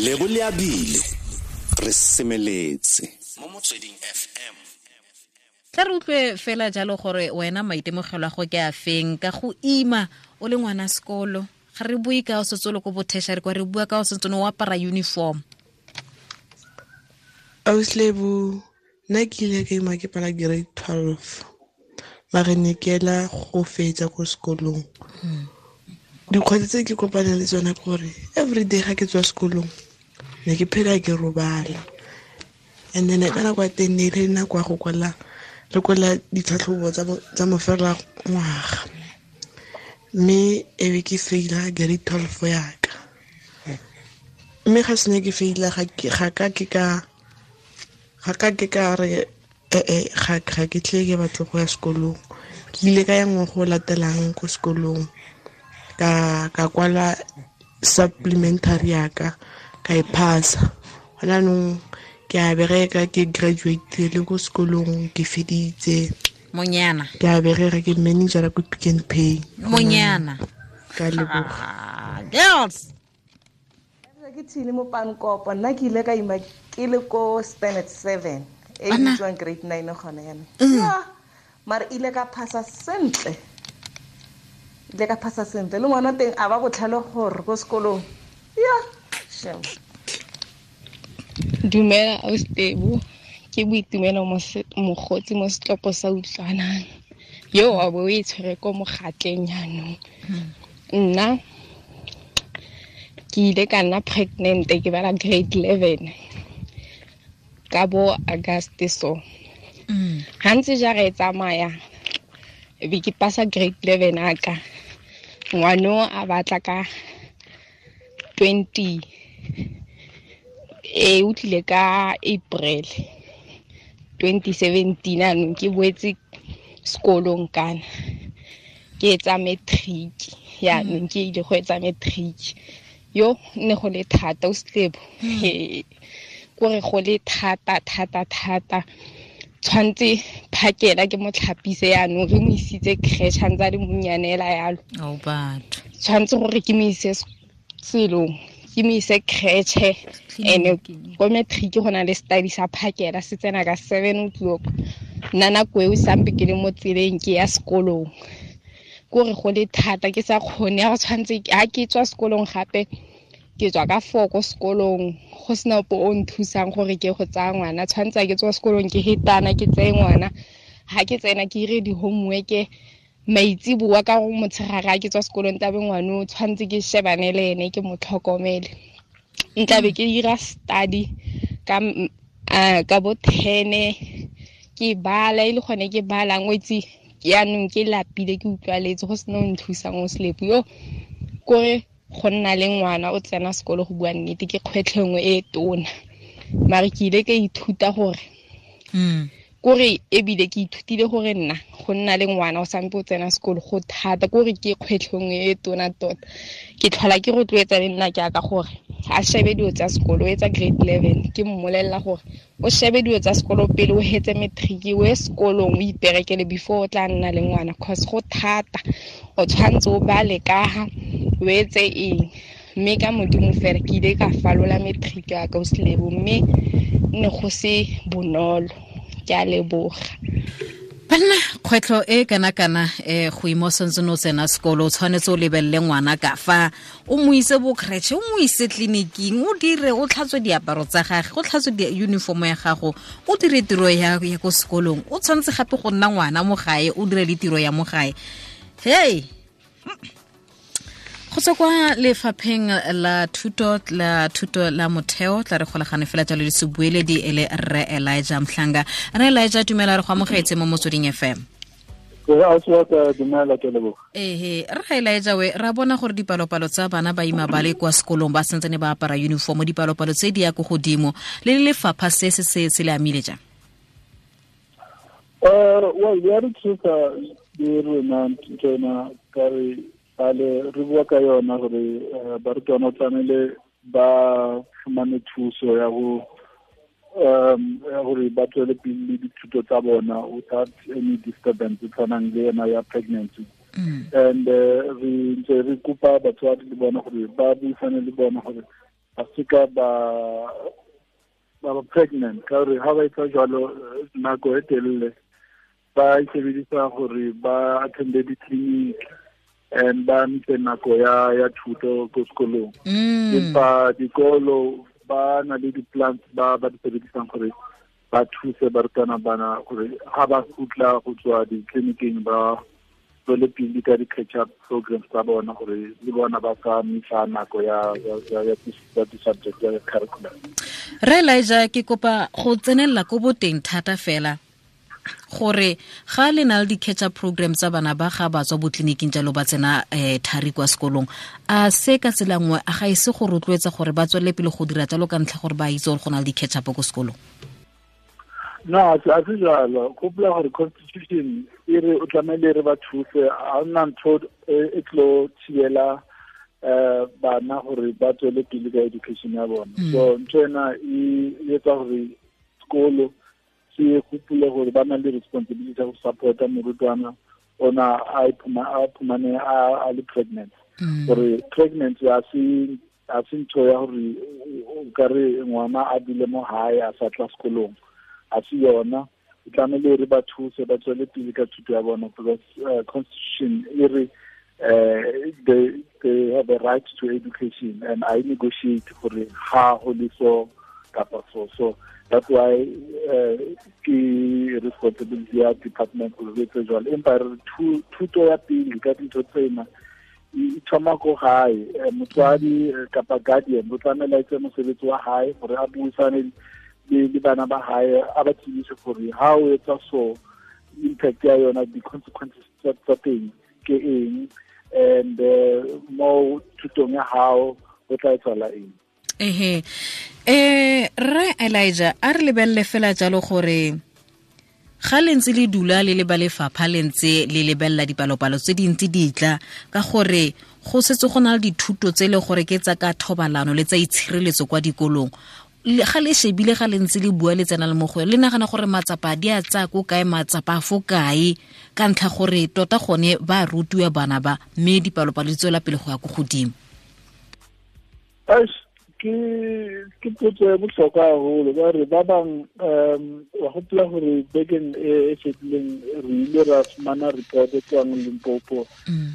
Lebo Leabile re semeletse mo Motsweding FM. Tla re utlwe fela jalo gore wena maitemogelo a go ke a feng ka go ima o le ngwana sekolo. Ga re bue ka o setse o le ko bo-tertiary kwa, re bua ka o setse o apara uniform. Ausi Lebo, nna ke ile ka ima ke pala grade 12, mare ne ke ela go fetsa ko sekolong. Dikgwetlho tse ke kopaneng le tsona ke gore everyday ga ke tswa sekolong ne ke phela ke robala, and then ka nako ya teng ne e le nako ya go kwala, re kwala ditlhatlhobo tsa mofela ngwaga, mme e be ke faila grade 12 yaka. Mme ga sene ke faila, ga ka ke ka, ga ka ke ka re, ga ke tle ke batle go ya sekolong. Ke ile ka ya ngwaga o latelang ko sekolong, ka kwala supplementary yaka, ka e phasa. Gona jaanong ke a bereka, ke graduate le ko sekolong, ke feditse. Monyana. Ke a bereka, ke manager ko Pick n Pay. Monyana. Ka leboga. Girls. Ke thile mo Pankopo, nna ke ile ka ima ke le ko standard 7, e Bana. bitswang grade 9 gone yana. Ya, mara ile ka phasa sentle. Ile ka phasa sentle. Le ngwana teng a ba botlhale gore ko sekolong. Ya, shem. Dumela Ausi Lebo, ke Boitumelo Mogotsi mo setlopo sa Utlwanang. Yo wa bo o e tshwere ko mogatleng jaanong. Nna ke ile ka nna pregnant ke bala grade 11 ka bo August so. Ha ntse jara e tsamaya, e be ke pasa grade 11 a ka. Ngwano a batla ka 20, e o tlile ka April 2017, anong ke boetse sekolong kana ke etsa matric. Yaanong ke ile go etsa matric. Yo ne go le thata o Lebo. Kore go le thata, thata, thata. Tshwantse phakela ke mo tlhapise yaanong, re mo isitse creche, a ntse a le monnyane hela yalo. Oh, batho. Tshwantse gore ke mo ise selong, ke mo ise creche. Clinic. Ene ko matric go na le study sa phakela, se tsena ka 7 o'clock. Nna nako eo sampe ke le mo tseleng ke ya sekolong. Kore go le thata, ke sa kgone, ha go tshwantse, ha ke tswa sekolong gape, ke tswa ka 4 ko sekolong, go sena ope o nthusang gore ke go tsaya ngwana. Tshwantse ha ke tswa sekolong ke hetana, ke tseye ngwana. Ha ke tsena ke ire di-homework, maitsiboa ka go motshegare ha ke tswa sekolong, tlabe ngwana o tshwantse ke shebane le ene, ke mo tlhokomele. Ntlabe ke dira study ka bo 10, ke bala, e le gone ke balang, o itse, yaanong ke lapile, ke utlwaletse, go sena o nthusang o Slepo. Yo, kore go nna le ngwana o tsena sekolo, go bua nnete, ke kgwetlho nngwe e tona. Mare ke ile ka ithuta gore, kore ebile ke ithutile gore nna go nna le ngwana o sampe o tsena sekolo go thata, kore ke kgwetlho nngwe e tona tota. Ke tlhola ke rotloetsa le nna ke aka gore a shebe dilo tsa sekolo, o etsa grade 11, ke mmolelela gore o shebe dilo tsa sekolo pele o hetse matric, o ye sekolong o iperekele before o tla nna le ngwana, cause go thata, o tshwantse o bale ka ha o etse eng. Mme ka Modimo fela ke ile ka falola matric ya ka o Lebo, mme ne go se bonolo. Ke a leboga. Banna, kgwetlho e kana kana, go ima o santse o tsena sekolo, o tshwanetse o lebelele ngwana ka fa, o mo ise bo creche, o mo ise tleliniking, o dire, o tlhatswe diaparo tsa gagwe, o tlhatswe uniform ya gago, o dire tiro ya ko sekolong, o tshwanetse gape go nna ngwana mo gae, o dire le tiro ya mo gae. Hey! Go tswa kwa lefapheng la thuto la thuto la motheo, tla re golagane fela jalo le sebueledi e le Rre Elijah Mhlanga. Rre Elijah, dumela, re go amogetse mo Motsweding FM. Ee, ausi wa ka, dumela, ke leboga. Ehe, Rre Elijah, we ra bona gore dipalopalo tsa bana ba ima ba le kwa sekolong ba santsane ba apara uniform, dipalopalo tse di ya ko godimo, le lefapha se se se se le amile jang? Well, ya re thusa le rona ntsena ka re bale re bua ka yona gore barutwana o tlamehile ba fumane thuso ya go, ya gore ba tswele pele le dithuto tsa bona without any disturbance e tshwanang le ena ya pregnancy. And re ntse re kopa batswadi le bona gore ba buisane le bona gore ba seka ba ba pregnant, ka gore ha ba etsa jwalo nako e telele ba isebedisa gore ba attende di-clinic and ba ntse nako ya thuto ko sekolong. Empa dikolo ba na le di-plans ba di sebedisang gore ba thuse barutwana bana gore ha ba kgutla go tswa di-clinicing ba tswele pele ka di-catch-up programs tsa bona gore le bona ba ka misa nako ya di-subject ya curriculum. Re Elijah, ke kopa go tsenelela ko boteng thata fela gore ga le na le di-catch-up program tsa bana ba ga ba tswa botleliniking jalo ba tsena thari kwa sekolong, a se ka tsela nngwe a ga ise go rotloetsa gore ba tswelele pele go dira jalo ka ntlha gore ba itse gore go na le di-catch-up ko sekolong? No, a se jalo. Gopola gore constitution e re o tlamehile re ba thuse, ha hona ntho e tlo thibela bana gore ba tswele pele ka education ya bona. So ntho ena e etsa gore sekolo se gopole gore ba na le responsibility ya go support-a morutwana ona a iphumane a le pregnant. Gore pregnancy a se ntho ya gore o ka re ngwana a dule mo hae a sa tla sekolong, a se yona. O tlamehile re ba thuse ba tswele pele ka thuto ya bona, because constitution e re they have a right to education, and I negotiate gore ha ho le so kapa so. So that's why ke responsibility ya department gore re etse jwalo. Empa re thuto ya pele ka dintho tsena e thoma ko gae. Motswadi kapa guardian o tlamehile a etse mosebetsi wa hae gore a buisane le bana ba hae, a ba tsebise gore ha o etsa so impact ya yona, di-consequences tsa teng ke eng, and mo thutong ya hao o tla etsahala eng. Ehe. Rre Elijah, a re lebelele fela jalo gore ga le ntse le dula le le ba lefapha le ntse le lebelela dipalopalo tse dintsi di tla, ka gore go setse go na le dithuto tse e le gore ke tsa ka thobalano le tsa itshireletso kwa dikolong. Ga le shebile ga le ntse le bua le tsena le mo go le nagana gore matsapa di a tsaya ko kae, matsapa a fo kae, ka ntlha gore tota gone ba rutiwa bana ba, mme dipalopalo di tswela pele go ya ko godimo? Ke potso e bohlokwa haholo ka gore ba bang wa gopola gore bekeng e fetileng re ile ra fumana report e tswang Limpopo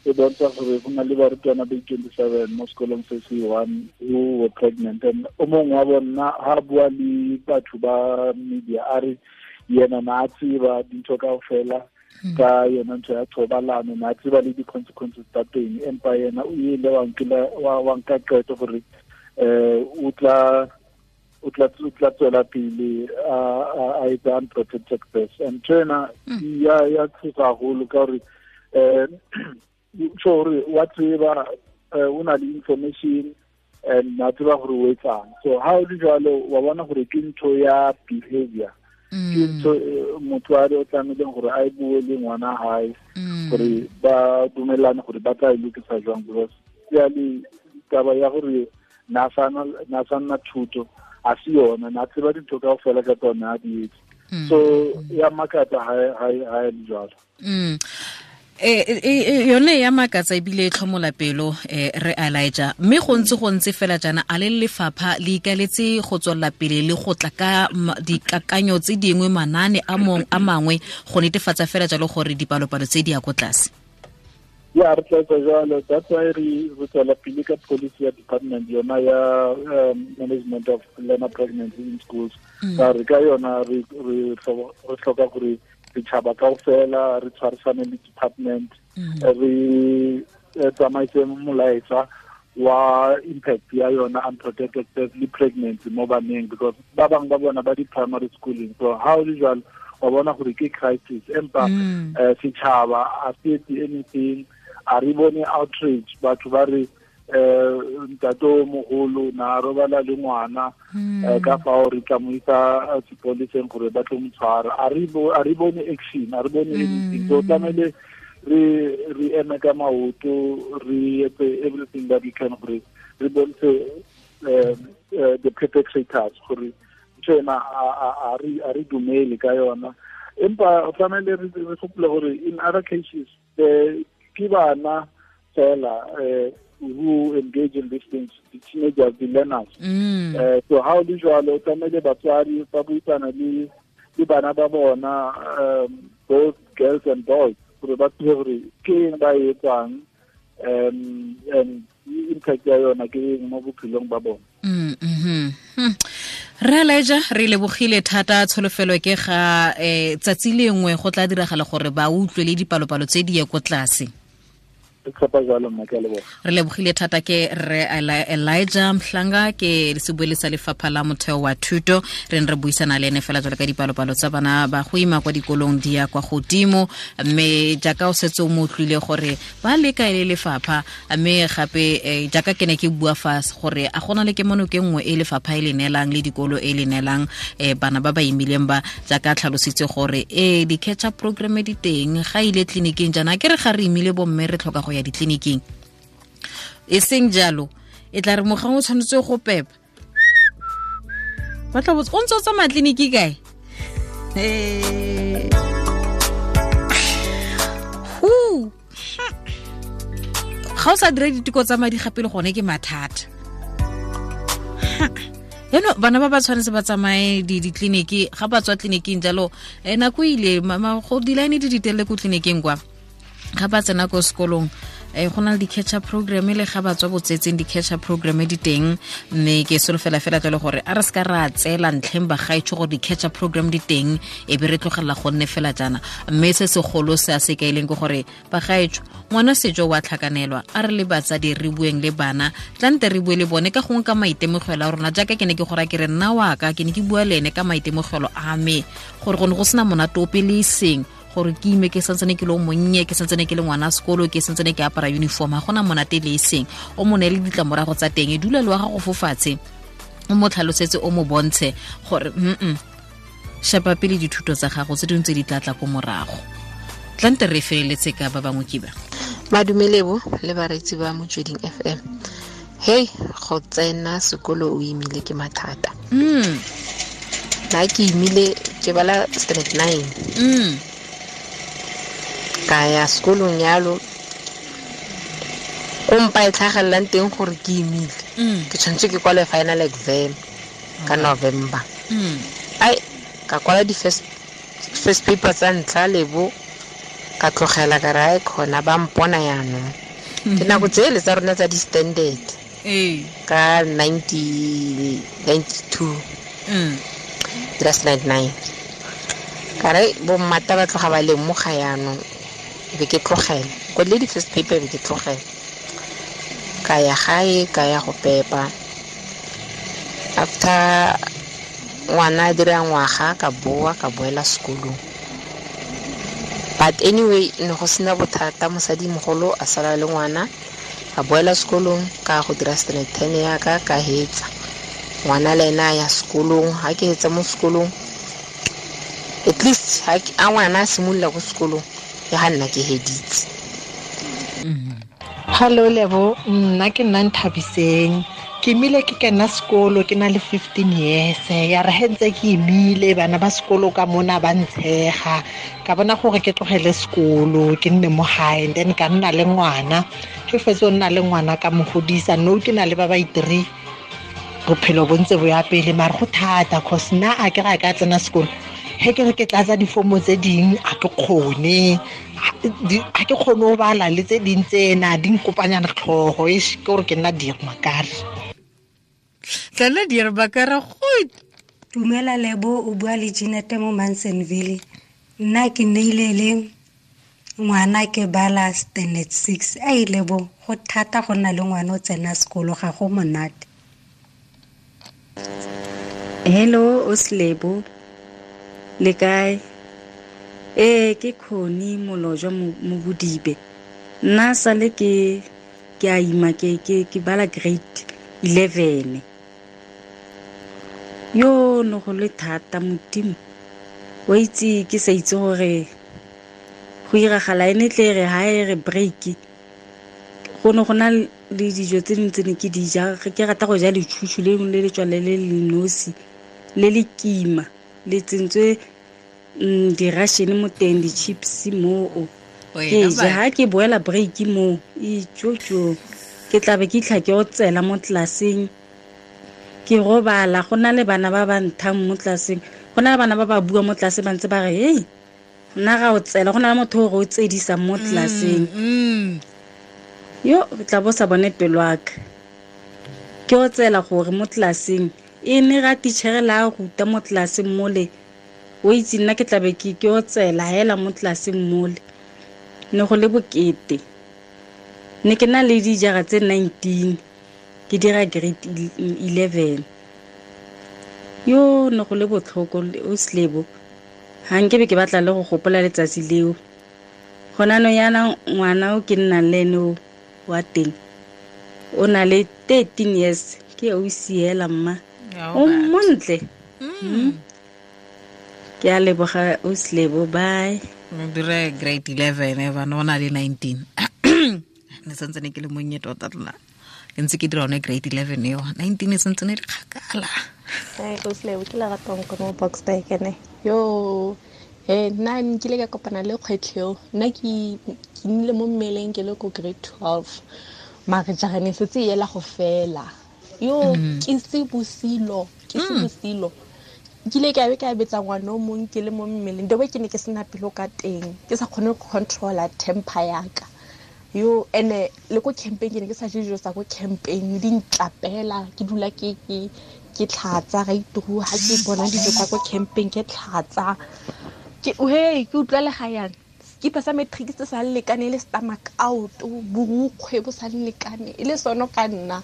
e bontsha gore go na le barutwana ba 27 mo sekolong se se one who were pregnant, and o mongwe wa bona ha bua le batho ba media a re yena na a tseba dintho kaofela ka yona ntho ya thobalano, na a tseba le di-consequences tsa teng, empa yena o ile wa nka qeto gore o tla tswela pele a etsa unprotected birth. And ntho ena ya thusa haholo ka gore tjho hore wa tseba, o na le information and na tseba gore o etsang. So ha o le jwalo wa bona gore ke ntho ya behavior, ke ntho motswadi o tlamehileng gore a e bue le ngwana hae gore ba dumellane gore ba tla e lokisa jwang, because jwale taba ya gore na sa nna thuto a se yona, na tseba dintho kaofela ka tsona a di etse. So ya makatsa ha e le jwalo. Yone ya makatsa ebile e tlhomola pelo, re Elijah, mme go ntse fela jaana a le lefapha le ikaletse go tswelela pele le go tla ka dikakanyo tse dingwe, manane a mangwe go netefatsa fela jalo gore dipalopalo tse di ya ko tlase? Ya, re tla etsa jwalo. That's why re tswela pele ka policy ya department yona ya management of learner pregnancy in schools. Ka re ka yona re hloka gore setšhaba kaofela re tshwarisane le department, re tsamaise molaetsa wa impact ya yona unprotected birth le pregnancy mo baneng, because ba bang ba bona ba di-primary schooling. So ha o le jwalo wa bona gore ke crisis, empa setšhaba a se etse anything, a re bone outrage, batho ba re ntate o mogolo na robala le ngwana ka fao re tla mo isa sepoleseng gore ba tlo mo tshwara. A re bone action, a re bone anything. So tlamehile re eme ka maoto, re etse everything that we can gore re bontshe the perpetrators gore ntho ena a re dumele ka yona. Empa o tlamehile re gopole gore in other cases ke bana fela who engage in these things, the teenagers, the learners. So how do jwalo tlamehile batswadi ba buisana le bana ba bona, both girls and boys, gore ba tsebe gore ke eng ba e etsang, and impact ya yona ke eng mo bophelong ba bona. Re Elijah, re lebogile thata. Tsholofelo ke ga tsatsi lengwe go tla diragala gore ba utlwe le dipalopalo tse di ye ko tlase. Re lebogile thata ke re Elijah Mhlanga, ke sebueledi sa lefapha la motheo wa thuto. Re ne re buisana le ene fela jalo ka dipalopalo tsa bana ba go ima kwa dikolong di ya kwa godimo, mme jaaka o setse o mo utlwile gore ba leka e le lefapha, mme gape jaaka ke ne ke bua fa gore a gona le kemono ke nngwe e lefapha e le neelang le dikolo e le neelang bana ba ba imileng ba, jaaka tlhalositse gore di-catch up program di teng, ga ile tleliniking jaana ke re ga re imile bomme re tlhoka go ya ditleliniking, e seng jalo e tla re mogang o tshwanetse go pepa ba tla botsa o ntse o tsamaya tleliniki kae. Ga o sa dira diteko tsa madi gape le gone ke mathata. Yaanong bana ba ba tshwanetse ba tsamaye ditleliniki, ga ba tswa tleliniking jalo nako ile go di-line di ditelele ko tleliniking kwa, ga ba tsena ko sekolong go na le di-catch up program, le ga ba tswa botsetseng di-catch up program di teng, mme ke solofela fela tlele gore a re se ka ra tseela ntlheng bagaetsho gore di-catch up program di teng e be re tlogelela go nne fela jaana. Mme se segolo se a se kaileng ke gore bagaetsho ngwana sejo wa tlhakanelwa, a re le batsadi re bueng le bana, tlante re bue le bone ka gongwe ka maitemogelo a rona, jaaka ke ne ke gora ke re nna wa ka ke ne ke bua le ene ka maitemogelo a me gore go ne go sena monate ope le eseng gore ke ime ke santsane ke le monnye, ke santsane ke le ngwana sekolo, ke santsane ke apara uniform, ga gona monate le eseng. O mo neele ditlamorago tsa teng, e dula le wa gago fo fatshe, o mo tlhalosetse, o mo bontshe gore shapa pele dithuto tsa gago tse dingwe tse di tla tla ko morago. Tlante re feleletse ka ba bangwe ke ba. Madumelebo le bareetsi ba Motsweding FM. Hey, go tsena sekolo o imile ke mathata. Nna ke imile ke bala standard 9. Ka ya sekolong yalo, ko mpa e tlhagelelang teng gore ke imile. Ke tshwanetse ke kwale final exam ka November. Ai, ka kwala di-first paper tsa ntlha lebo, ka tlogela ka re ai khona ba mpona yaanong. Ke nako tsele tsa rona tsa di-standard. Ka 1992. That's 99. Ka re bommata ba tloga ba lemoga yaanong, be ke tlogela. Kwadile di-first paper be ke tlogela. Ka ya gae, ka ya go pepa. After ngwana a dira ngwaga, ka boa, ka boela sekolong. But anyway, ne go sena bothata, mosadimogolo a sala le ngwana, ka boela sekolong, ka go dira standard 10 ya ka, ka hetsa. Ngwana le ena a ya sekolong, ha ke hetsa mo sekolong, at least ha a ngwana a simolola ko sekolong, ke ga nna ke heditse. Hello Lebo, nna ke nna Nthabiseng. Ke imile ke kena sekolo ke na le 15 years. Ya re he ntse ke imile bana ba sekolo ka mona ba ntshega. Ka bona gore ke tlogele sekolo ke nne mo gae, and then ka nna le ngwana. Ke fetse o nna le ngwana ka mo godisa, no ke na le ba ba itiri. Bophelo bo ntse bo ya pele, mare go thata cause nna a ke ga ka tsena sekolo. He ke re ke tlatsa difomo tse ding a ke kgone, a ke kgone ho bala le tse ding tsena di nkopanyana tlhogo, e ke gore ke nna dirmakare. Tla nna dirmakare go. Dumela Lebo, o bua le Jeanette mo Mansonville. Nna ke neile le ngwana ke bala standard 6. Ai Lebo, go thata go nna le ngwana o tsena sekolo, ga go monate. Hello Oslebo, le kae? Ke Khoni Molojwa mo Bodibe. Nna sale ke a ima ke bala grade 11. Yo no go le thata Modimo. Wa itse ke sa itse gore go iragala ene tle re ha e re break. Go ne go na le dijo tse dingwe tse ne ke di ja, ke rata go ja letšhutšhu le le letswale le le nosi le le kima le tsentswe di-ration mo teng, di-chips moo. Ke ja ha ke boela break moo, itjotjo. Ke tla be ke itlha ke otsela mo tlelaseng, ke robala. Go na le bana ba ba nthang mo tlelaseng, go na le bana ba ba bua mo tlelaseng ba ntse ba re hei nna ga o tsela, go na le motho o re o tsedisang mo tlelaseng. Yo tla bo sa bone pelo ya ka. Ke o tsela gore mo tlelaseng e ne ga teacher la ruta mo tlelaseng mole, o itse nna ke tla be ke o tsela hela mo tlelaseng mole. Ne go le bokete. Ne ke na le dijara tse 19, ke dira grade 11. Yo ne go le botlhoko o Slebo. Ha nke be ke batla le go gopola letsatsi leo. Gona no yana ngwana o ke nnang le ene o wa teng, o na le 13 years, ke o siela mma. O montle. Ke a leboga o Slebo, bye. O dire grade 11 bana o na le 19. Ne santse ne ke le monnye tota nna. Ke ntse ke dira one grade 11 eo. 19 e santse ne le kgakala. Ai o Slebo, ke Leratong ko mo Boksburg ene. Yo, nna nkile ka kopana le kgwetlho eo. Nna ke nnile mo mmeleng ke le ko grade 12. Mare jara ne setse e ela go fela. Yo, ke se bosilo, ke se bosilo. Nkile ka be ka betsa ngwana o mong ke le mo mmeleng. The way ke ne ke sena pelo ka teng, ke sa kgone go controla temper ya ka. Yo, ene le ko campeng ke ne ke sa je dijo tsa ko campeng, di ntlapela, ke dula ke ke tlhatsa ga ituru ha ke bona dijo tsa ko campeng ke tlhatsa. Ke hey, ke utlwa le ga yang. Skipa sa matric se sa lekane le stomach out, borukgwe bo sa lekane, e le sono ka nna.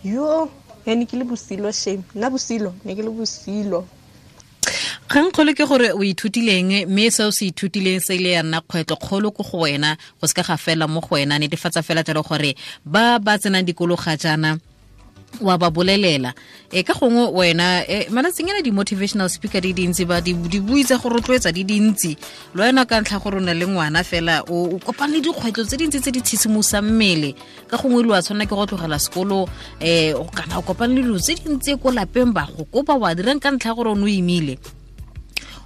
Yo, ne ke le bosilo shame. Nna bosilo, ne ke le bosilo. Kgang kgolo ke gore o ithutileng, mme seo se ithutileng se ile ya nna kgwetlho kgolo ko go wena, go seka ga fela mo go wena. Netefatsa fela jalo gore ba ba tsenang dikolo ga jaana wa ba bolelela. Ka gongwe wena malatsing ana di-motivational speaker di dintsi, ba di bui tsa go rotloetsa di dintsi. Le wena ka ntlha gore o na le ngwana fela, o kopane le dikgwetlho tse dintsi tse di tshisimosang mmele. Ka gongwe lo a tshwanela ke go tlogela sekolo, kana o kopane le dilo tse dintsi ko lapeng, ba go kopa wa dirang ka ntlha gore o ne o imile.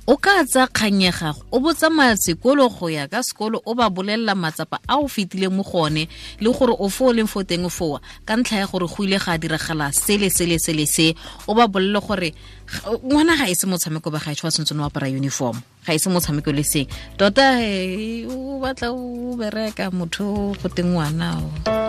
O ka tsa kgang ya gago, o bo tsamaya sekolo go ya ka sekolo, o ba bolelela matsapa a o fetileng mo go one, le gore o fo o leng fo teng foa, ka ntlha ya gore go ile ga diragala sele sele sele se. O ba bolele gore ngwana ga e se motshameko ba gaetsho, wa tshwanetse o apara uniform, ga e se motshameko le seng. Tota o batla o bereka motho go teng ngwana o.